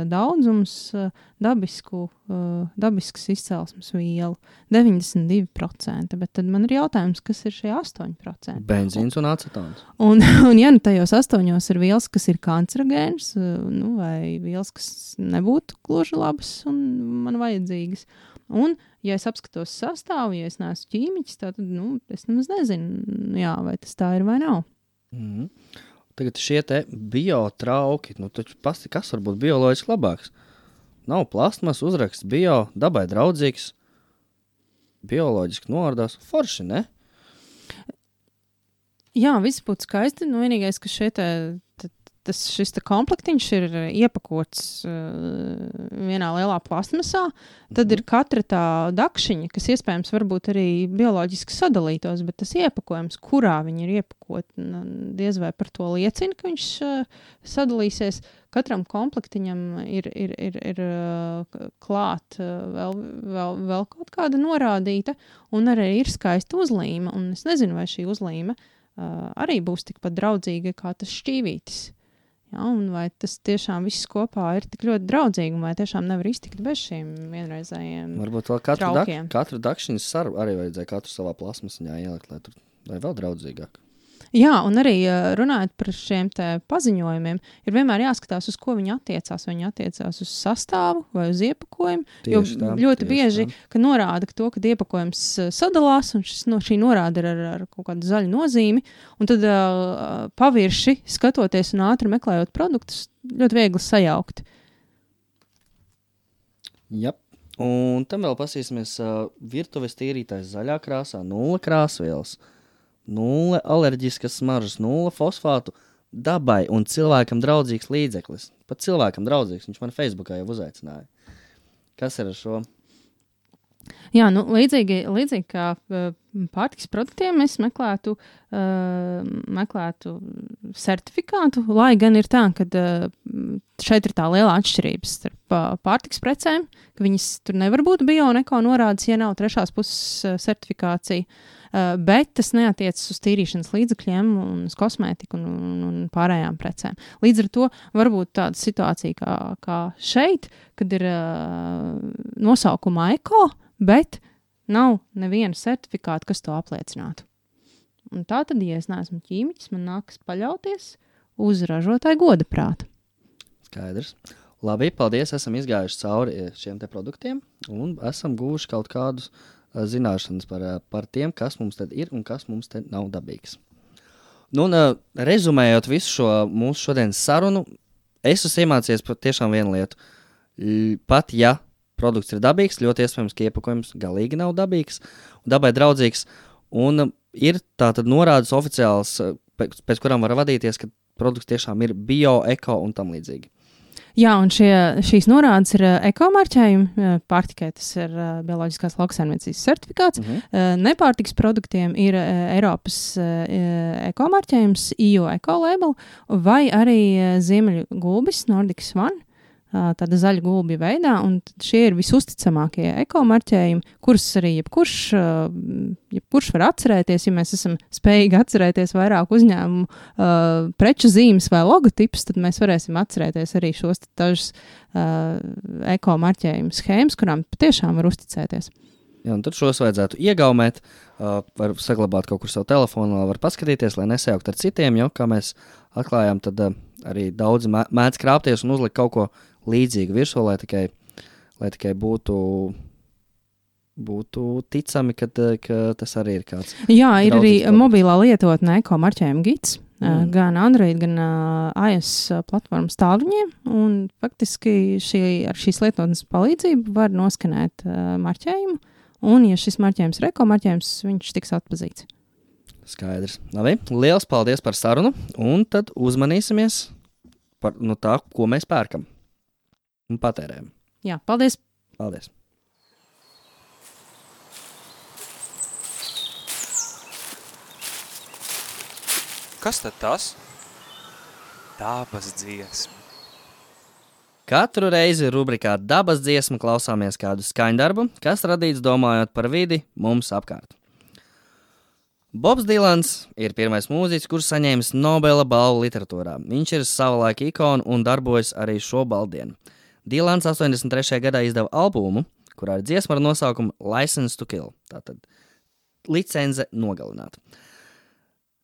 S4: daudzums dabiskas izcelsmes vielu 92%, bet tad man ir jautājums, kas ir šie 8%?
S3: Benzīns un acetons.
S4: Un ja tajos 8 ir vielas, kas ir kancerogēnas, vai vielas, kas nebūtu gluži labas un man vajadzīgas. Un, ja es apskatos sastāvu, ja es neesmu ķīmiķis, tad, es nemaz nezinu, vai tas tā ir vai nav.
S3: Tagad šie te biotrauki, taču pasti, kas var būt bioloģiski labāks? Nav plasmas, uzraksts bio, dabai draudzīgs, bioloģiski noārdās, forši, ne?
S4: Jā, viss būtu skaisti, vienīgais, ka šis komplektiņš ir iepakots vienā lielā plasmasā, tad ir katra tā dakšiņa, kas iespējams varbūt arī bioloģiski sadalītos, bet tas iepakojums, kurā viņi ir iepakot, diez vai par to liecina, ka viņš sadalīsies. Katram komplektiņam ir klāt vēl kaut kāda norādīta, un arī ir skaista uzlīme, un es nezinu, vai šī uzlīme arī būs tikpat draudzīga kā tas šķīvītis. Ja, un vai tas tiešām viss kopā ir tik ļoti draudzīgi, un vai tiešām nevar iztikt bez šiem vienreizējiem
S3: varbūt vēl katru dakšiņas saru arī vajadzēja katru savā plasmasiņā ielikt, lai vēl draudzīgāk.
S4: Jā, un arī runājot par šiem te paziņojumiem, ir vienmēr jāskatās, uz ko viņi attiecās. Vai viņi attiecās uz sastāvu vai uz iepakojumu. Jo ļoti bieži, ka norāda to, ka iepakojums sadalās, un šī norāda ir ar kaut kādu zaļu nozīmi, un tad pavirši skatoties un ātri meklējot produktus, ļoti viegli sajaukt.
S3: Jep. Un tam vēl pasīsimies virtuves tīrītājs zaļā krāsā, 0 krāsvielas, 0 alerģiskas smaržas, 0 fosfātu, dabai un cilvēkam draudzīgs līdzeklis. Pat cilvēkam draudzīgs, viņš man Facebookā jau uzaicināja. Kas ir ar šo?
S4: Jā, nu, līdzīgi kā pārtikas produktiem, es meklētu certifikātu, lai gan ir tā, ka šeit ir tā liela atšķirības starp pārtikas precēm, ka viņas tur nevar būt bio un eko norādes, ja nav trešās puses certifikācija, bet tas neatiecas uz tīrīšanas līdzekļiem un uz kosmētiku un pārējām precēm. Līdz ar to var būt tāda situācija kā šeit, kad ir nosaukumā eko, bet nav neviena certifikāta, kas to apliecinātu. Un tā tad, ja es neesmu ķīmiķis, man nākas paļauties uz ražotāju godaprātu.
S3: Skaidrs. Labi, paldies, esam izgājuši cauri šiem te produktiem un esam guvuši kaut kādus zināšanas par tiem, kas mums tad ir un kas mums te nav dabīgs. Nu, un rezumējot visu šo mūsu šodienas sarunu, es esmu iemācījies tiešām vienu lietu. Pat ja produkts ir dabīgs, ļoti iespējams, ka iepakojums galīgi nav dabīgs, dabai draudzīgs, un ir tātad norādes oficiāls, pēc kurām var vadīties, ka produkts tiešām ir bio, eko un tam līdzīgi.
S4: Jā, un šīs norādes ir ekomarķējumi, pārtikai tas ir bioloģiskās lauksaimniecības certifikāts, nepārtikas produktiem ir Eiropas ekomarķējums, EU Ecolabel, vai arī ziemeļu gulbis, Nordic Swan, tāda zaļa gulbja veidā, un šie ir visusticamākie ekomarķējumi, kurus arī jebkurš var atcerēties, ja mēs esam spējīgi atcerēties vairāk uzņēmumu preču zīmes vai logotipus, tad mēs varēsim atcerēties arī šos dažus ekomarķējumu schēmas, kurām patiešām var uzticēties.
S3: Jā, un tad šos vajadzētu iegaumēt, var saglabāt kaut kur savu telefonu, var paskatīties, lai nesajaukt ar citiem, jo, kā mēs atklājām, tad arī daudzi mēdz krāpties un uzlikt kaut ko līdzīgu virsū, lai tikai būtu ticami, ka tas arī ir kāds.
S4: Jā, ir arī mobilā lietotne ekomarķējuma gids, gan Android, gan iOS platformas tālruņiem, un faktiski ar šīs lietotnes palīdzību var noskanēt marķējumu, un ja šis marķējums ir ekomarķējums, viņš tiks atpazīts.
S3: Skaidrs. Labi, liels paldies par sarunu, un tad uzmanīsimies par tā, ko mēs pērkam un patērējam.
S4: Jā, paldies!
S3: Paldies!
S2: Kas tad tas? Dabas dziesma.
S3: Katru reizi rubrikā Dabas dziesma klausāmies kādu skaņdarbu, kas radīts domājot par vidi mums apkārt. Bobs Dilans ir pirmais mūziķis, kurš saņēmis Nobela balvu literatūrā. Viņš ir savulaika ikona un darbojas arī šo baldienu. Dilans 83. gadā izdeva albumu, kurā ir dziesma ar nosaukumu License to Kill, tātad licence nogalināt.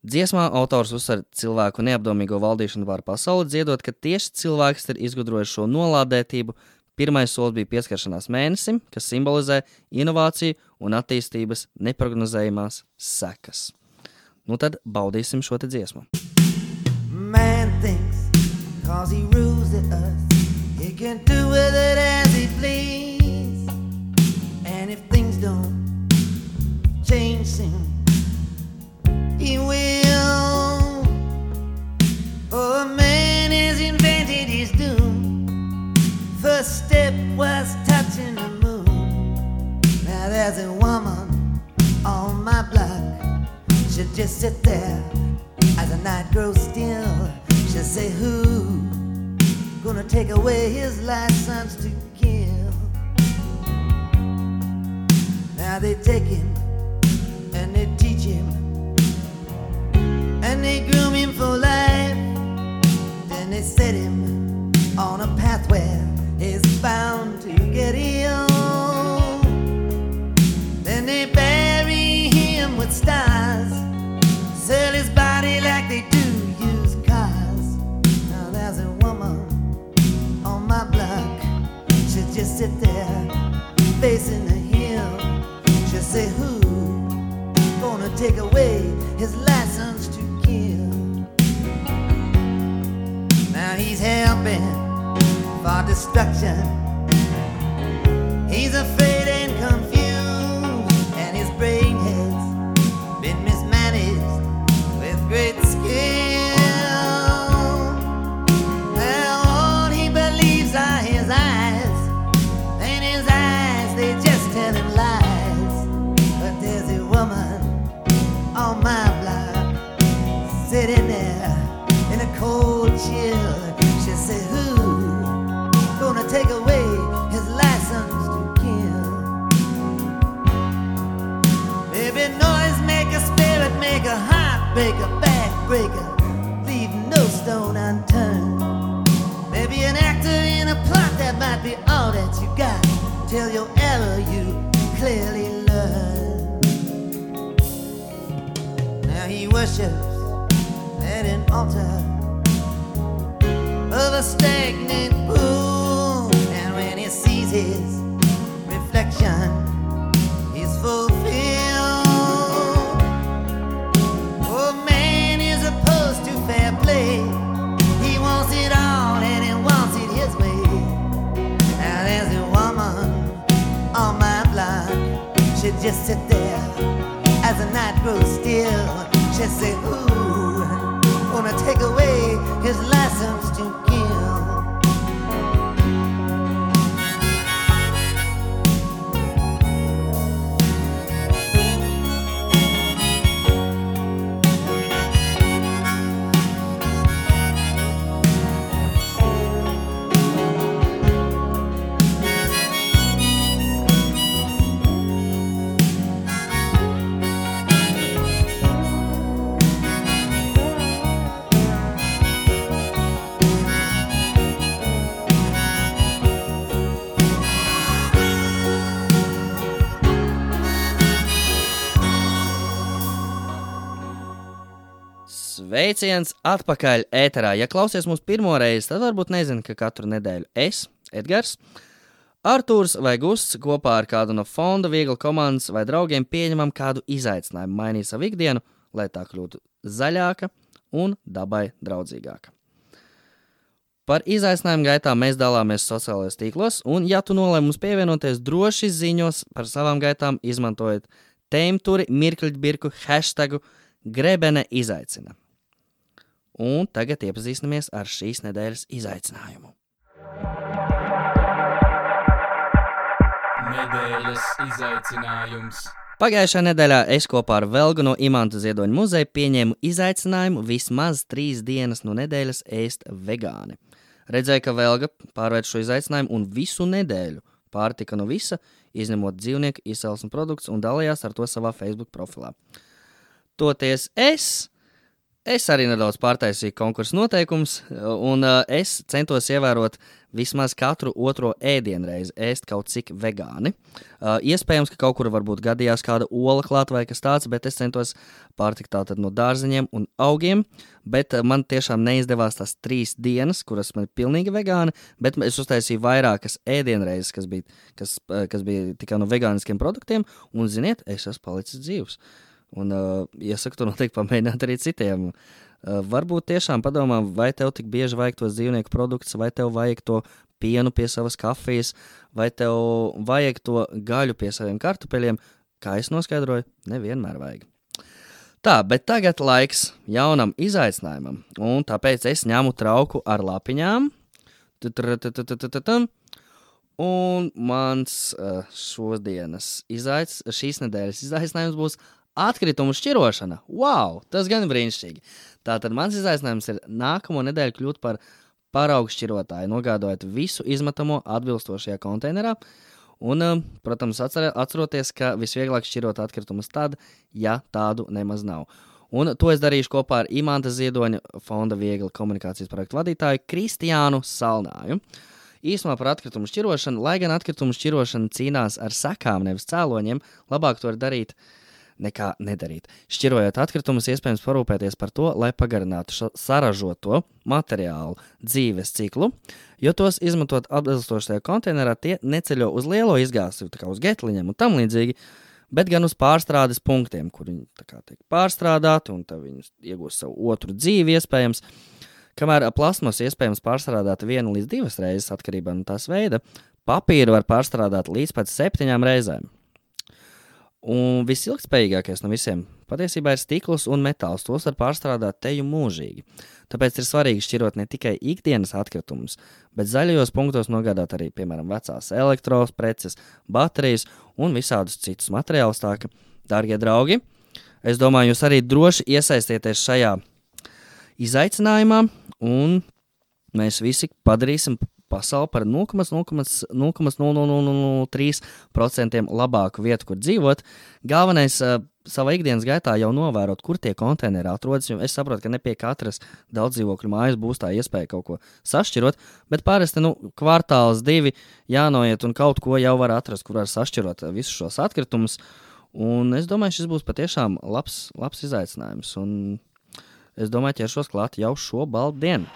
S3: Dziesmā autors uzsver cilvēku neapdomīgo valdīšanu pār pasauli, dziedot, ka tieši cilvēks ir izgudrojis šo nolādētību. Pirmais solis bija pieskaršanās mēnesim, kas simbolizē inovāciju un attīstības neprognozējumās sekas. Nu tad baudīsim šo te dziesmu.
S5: Man thinks, 'cause he rules the earth, he can do with it as he please. And if things don't change soon, he will. For a man has invented his doom. First step was touching the moon. Now there's a woman on my block. She'll just sit there as the night grows still. She'll say, who gonna take away his license to kill? Now they take him and they teach him and they groom him for life. Then they set him on a path where he's bound to get ill. Then they bury him with stars, sell his body like they do used cars. Now there's a woman on my block. She'll just sit there facing the hill. She'll say, who gonna take away his license to kill? Now he's helping for destruction. He He's afraid and confused, and his brain has been mismanaged with great skill. Now all he believes are his eyes, and his eyes, they just tell him lies. But there's a woman on my block sitting there in a cold chill. She said, who gonna take away his license to kill? Baby, noise maker, spirit maker, heartbreaker, backbreaker, leave no stone unturned. Maybe an actor in a plot that might be all that you got till your error you clearly learn. Now he worships at an altar of a stagnant pool, and when he sees his reflection, he's fulfilled. Oh, man is opposed to fair play. He wants it all and he wants it his way. Now there's a woman on my block. She just sit there as the night grows still. She say, ooh, gonna take away his license to kill.
S3: Sveiciens atpakaļ ēterā. Ja klausies mūs pirmo reizi, tad varbūt nezini, ka katru nedēļu es, Edgars, Artūrs vai Gusts kopā ar kādu no fonda viegla komandas vai draugiem pieņemam kādu izaicinājumu, mainīt savu ikdienu, lai tā kļūtu zaļāka un dabai draudzīgāka. Par izaicinājumu gaitām mēs dalāmies sociālajos tīklos, un ja tu nolēmi mums pievienoties, droši ziņos par savām gaitām, izmantojot tēmturi, mirkļbirku, hashtagu Grebene izaicina. Un tagad iepazīstamies ar šīs nedēļas izaicinājumu.
S2: Nedēļas izaicinājums.
S3: Pagājušā nedēļā es kopā ar Velgu no Imanta Ziedoņa muzeja pieņēmu izaicinājumu vismaz 3 dienas no nedēļas ēst vegāni. Redzēju, ka Velga pārvērt šo izaicinājumu un visu nedēļu pārtika no visa, izņemot dzīvnieku izcelsmes produktus un dalījās ar to savā Facebook profilā. Toties es arī nedaudz pārtaisīju konkursu noteikumus, un es centos ievērot vismaz katru otro ēdienreizi ēst kaut cik vegāni. Iespējams, ka kaut kur varbūt gadījās kāda ola klāt vai kas tāds, bet es centos pārtikt tātad no dārzeņiem un augiem, bet man tiešām neizdevās tās 3 dienas, kuras man ir pilnīgi vegāni, bet es uztaisīju vairākas ēdienreizes, kas bija tikai no vegāniskiem produktiem, un ziniet, es esmu palicis dzīvs. Un iesaku to noteikti pamēģināt arī citiem. Varbūt tiešām padomā, vai tev tik bieži vajag tos dzīvnieku produktus, vai tev vajag to pienu pie savas kafijas, vai tev vajag to gaļu pie saviem kartupeļiem. Kā es noskaidroju, nevienmēr vajag. Tā, bet tagad laiks jaunam izaicinājumam, un tāpēc es ņemu trauku ar lapiņām. Un mans šīs nedēļas izaicinājums būs atkritumu šķirošana. Wow, tas gan brīnišķīgi. Tātad mans izaicinājums ir nākamo nedēļu kļūt par paraugu šķirotāju, nogādājot visu izmetamo atbilstošajā konteinerā. Un, protams, atceroties, ka visvieglāk šķirot atkritumus tad, ja tādu nemaz nav. Un to es darīšu kopā ar Imanta Ziedoņa fonda viegla komunikācijas projektu vadītāju Kristiānu Salnāju. Īsumā par atkritumu šķirošanu, lai gan atkritumu šķirošana cīnās ar sekām, nevis cēloņiem, labāk to ir darīt nekā nedarīt. Šķirojot atkritumus, iespējams parūpēties par to, lai pagarinātu saražoto materiālu dzīves ciklu, jo tos izmantot atbilstošajā konteinerā tie neceļo uz lielo izgāstuvi, tā kā uz getliņiem un tam līdzīgi, bet gan uz pārstrādes punktiem, kur viņi tā kā tiek pārstrādāti un tad viņi iegūst savu otru dzīvi iespējams. Kamēr plasmas iespējams pārstrādāt 1 līdz 2 reizes atkarībā no tās veida, papīru var pārstrādāt līdz pat 7 reizēm. Un visilgtspējīgākais no visiem patiesībā ir stikls un metāls. Tos var pārstrādāt teju mūžīgi. Tāpēc ir svarīgi šķirot ne tikai ikdienas atkritumus, bet zaļajos punktos nogādāt arī, piemēram, vecās elektropreces, baterijas un visādus citus materiālus. Tā ka, dārgie draugi, es domāju, jūs arī droši iesaistieties šajā izaicinājumā, un mēs visi padarīsim pasauli par 0,0003% labāku vietu, kur dzīvot. Galvenais savā ikdienas gaitā jau novērot, kur tie konteineri atrodas, jo es saprotu, ka ne pie katras daudz dzīvokļu mājas būs tā iespēja kaut ko sašķirot, bet parasti kvartāls 2 jānoiet un kaut ko jau var atrast, kur var sašķirot visus šos atkritumus. Un es domāju, šis būs patiešām labs izaicinājums. Un es domāju, ķeršos klāt jau šo baldu dienu.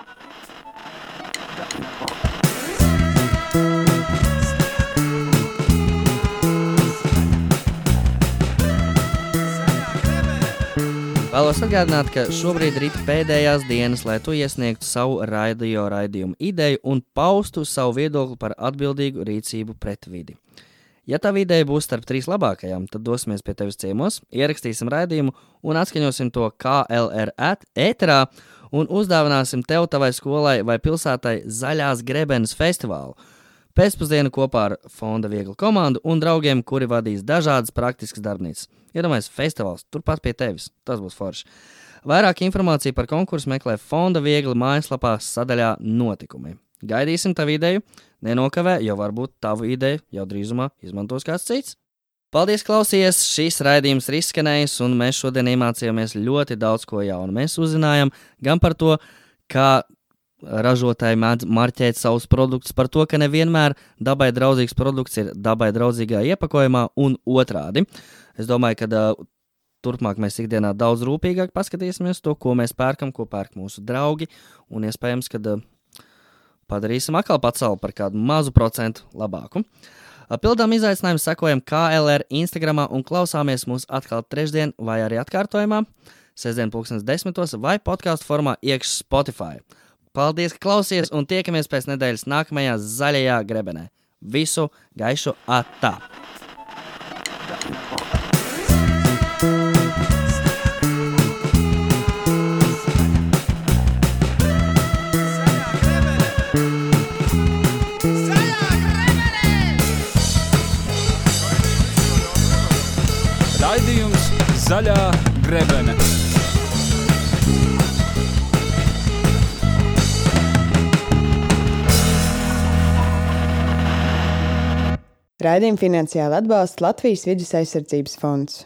S3: Vēlos atgādināt, ka šobrīd ir pēdējās dienas, lai tu iesniegtu savu raidījumu ideju un paustu savu viedokli par atbildīgu rīcību pret vidi. Ja tā ideja būs starp 3 labākajām, tad dosimies pie tevis ciemos, ierakstīsim raidījumu un atskaņosim to KLR ēterā un uzdāvināsim tev, tavai skolai vai pilsētai Zaļās grebenes festivālu. Pēcpusdienu kopā ar Fonda Viegla komandu un draugiem, kuri vadīs dažādas praktiskas darbnīcas. Iedomājies, festivāls turpat pie tevis. Tas būs forši. Vairāk informāciju par konkursu meklē Fonda Viegla mājaslapā sadaļā notikumi. Gaidīsim tavu ideju, nenokavē, jo varbūt tavu ideju jau drīzumā izmantos kāds cits. Paldies, klausies! Šīs raidījums ir izskanējis, un mēs šodien iemācījāmies ļoti daudz ko jaunu. Mēs uzzinājām gan par to, kā ražotāji mēdz marķēt savus produktus, par to, ka nevienmēr dabai draudzīgs produkts ir dabai draudzīgā iepakojumā un otrādi. Es domāju, ka turpmāk mēs ikdienā daudz rūpīgāk paskatīsimies to, ko mēs pērkam, ko pērk mūsu draugi, un iespējams, ka padarīsim atkal pasauli par kādu mazu procentu labāku. Pildām izaicinājumu, sekojam KLR Instagramā un klausāmies mūs atkal trešdien vai arī atkārtojumā, sestdien 10:00 vai podcastu formā iekš Spotify. Paldies, ka klausies, un tiekamies pēc nedēļas nākamajā zaļajā grebenē. Visu gaišu atā!
S2: Raidījums Zaļā grebene.
S1: Raidījumu finansiāli atbalsta Latvijas Vides aizsardzības fonds.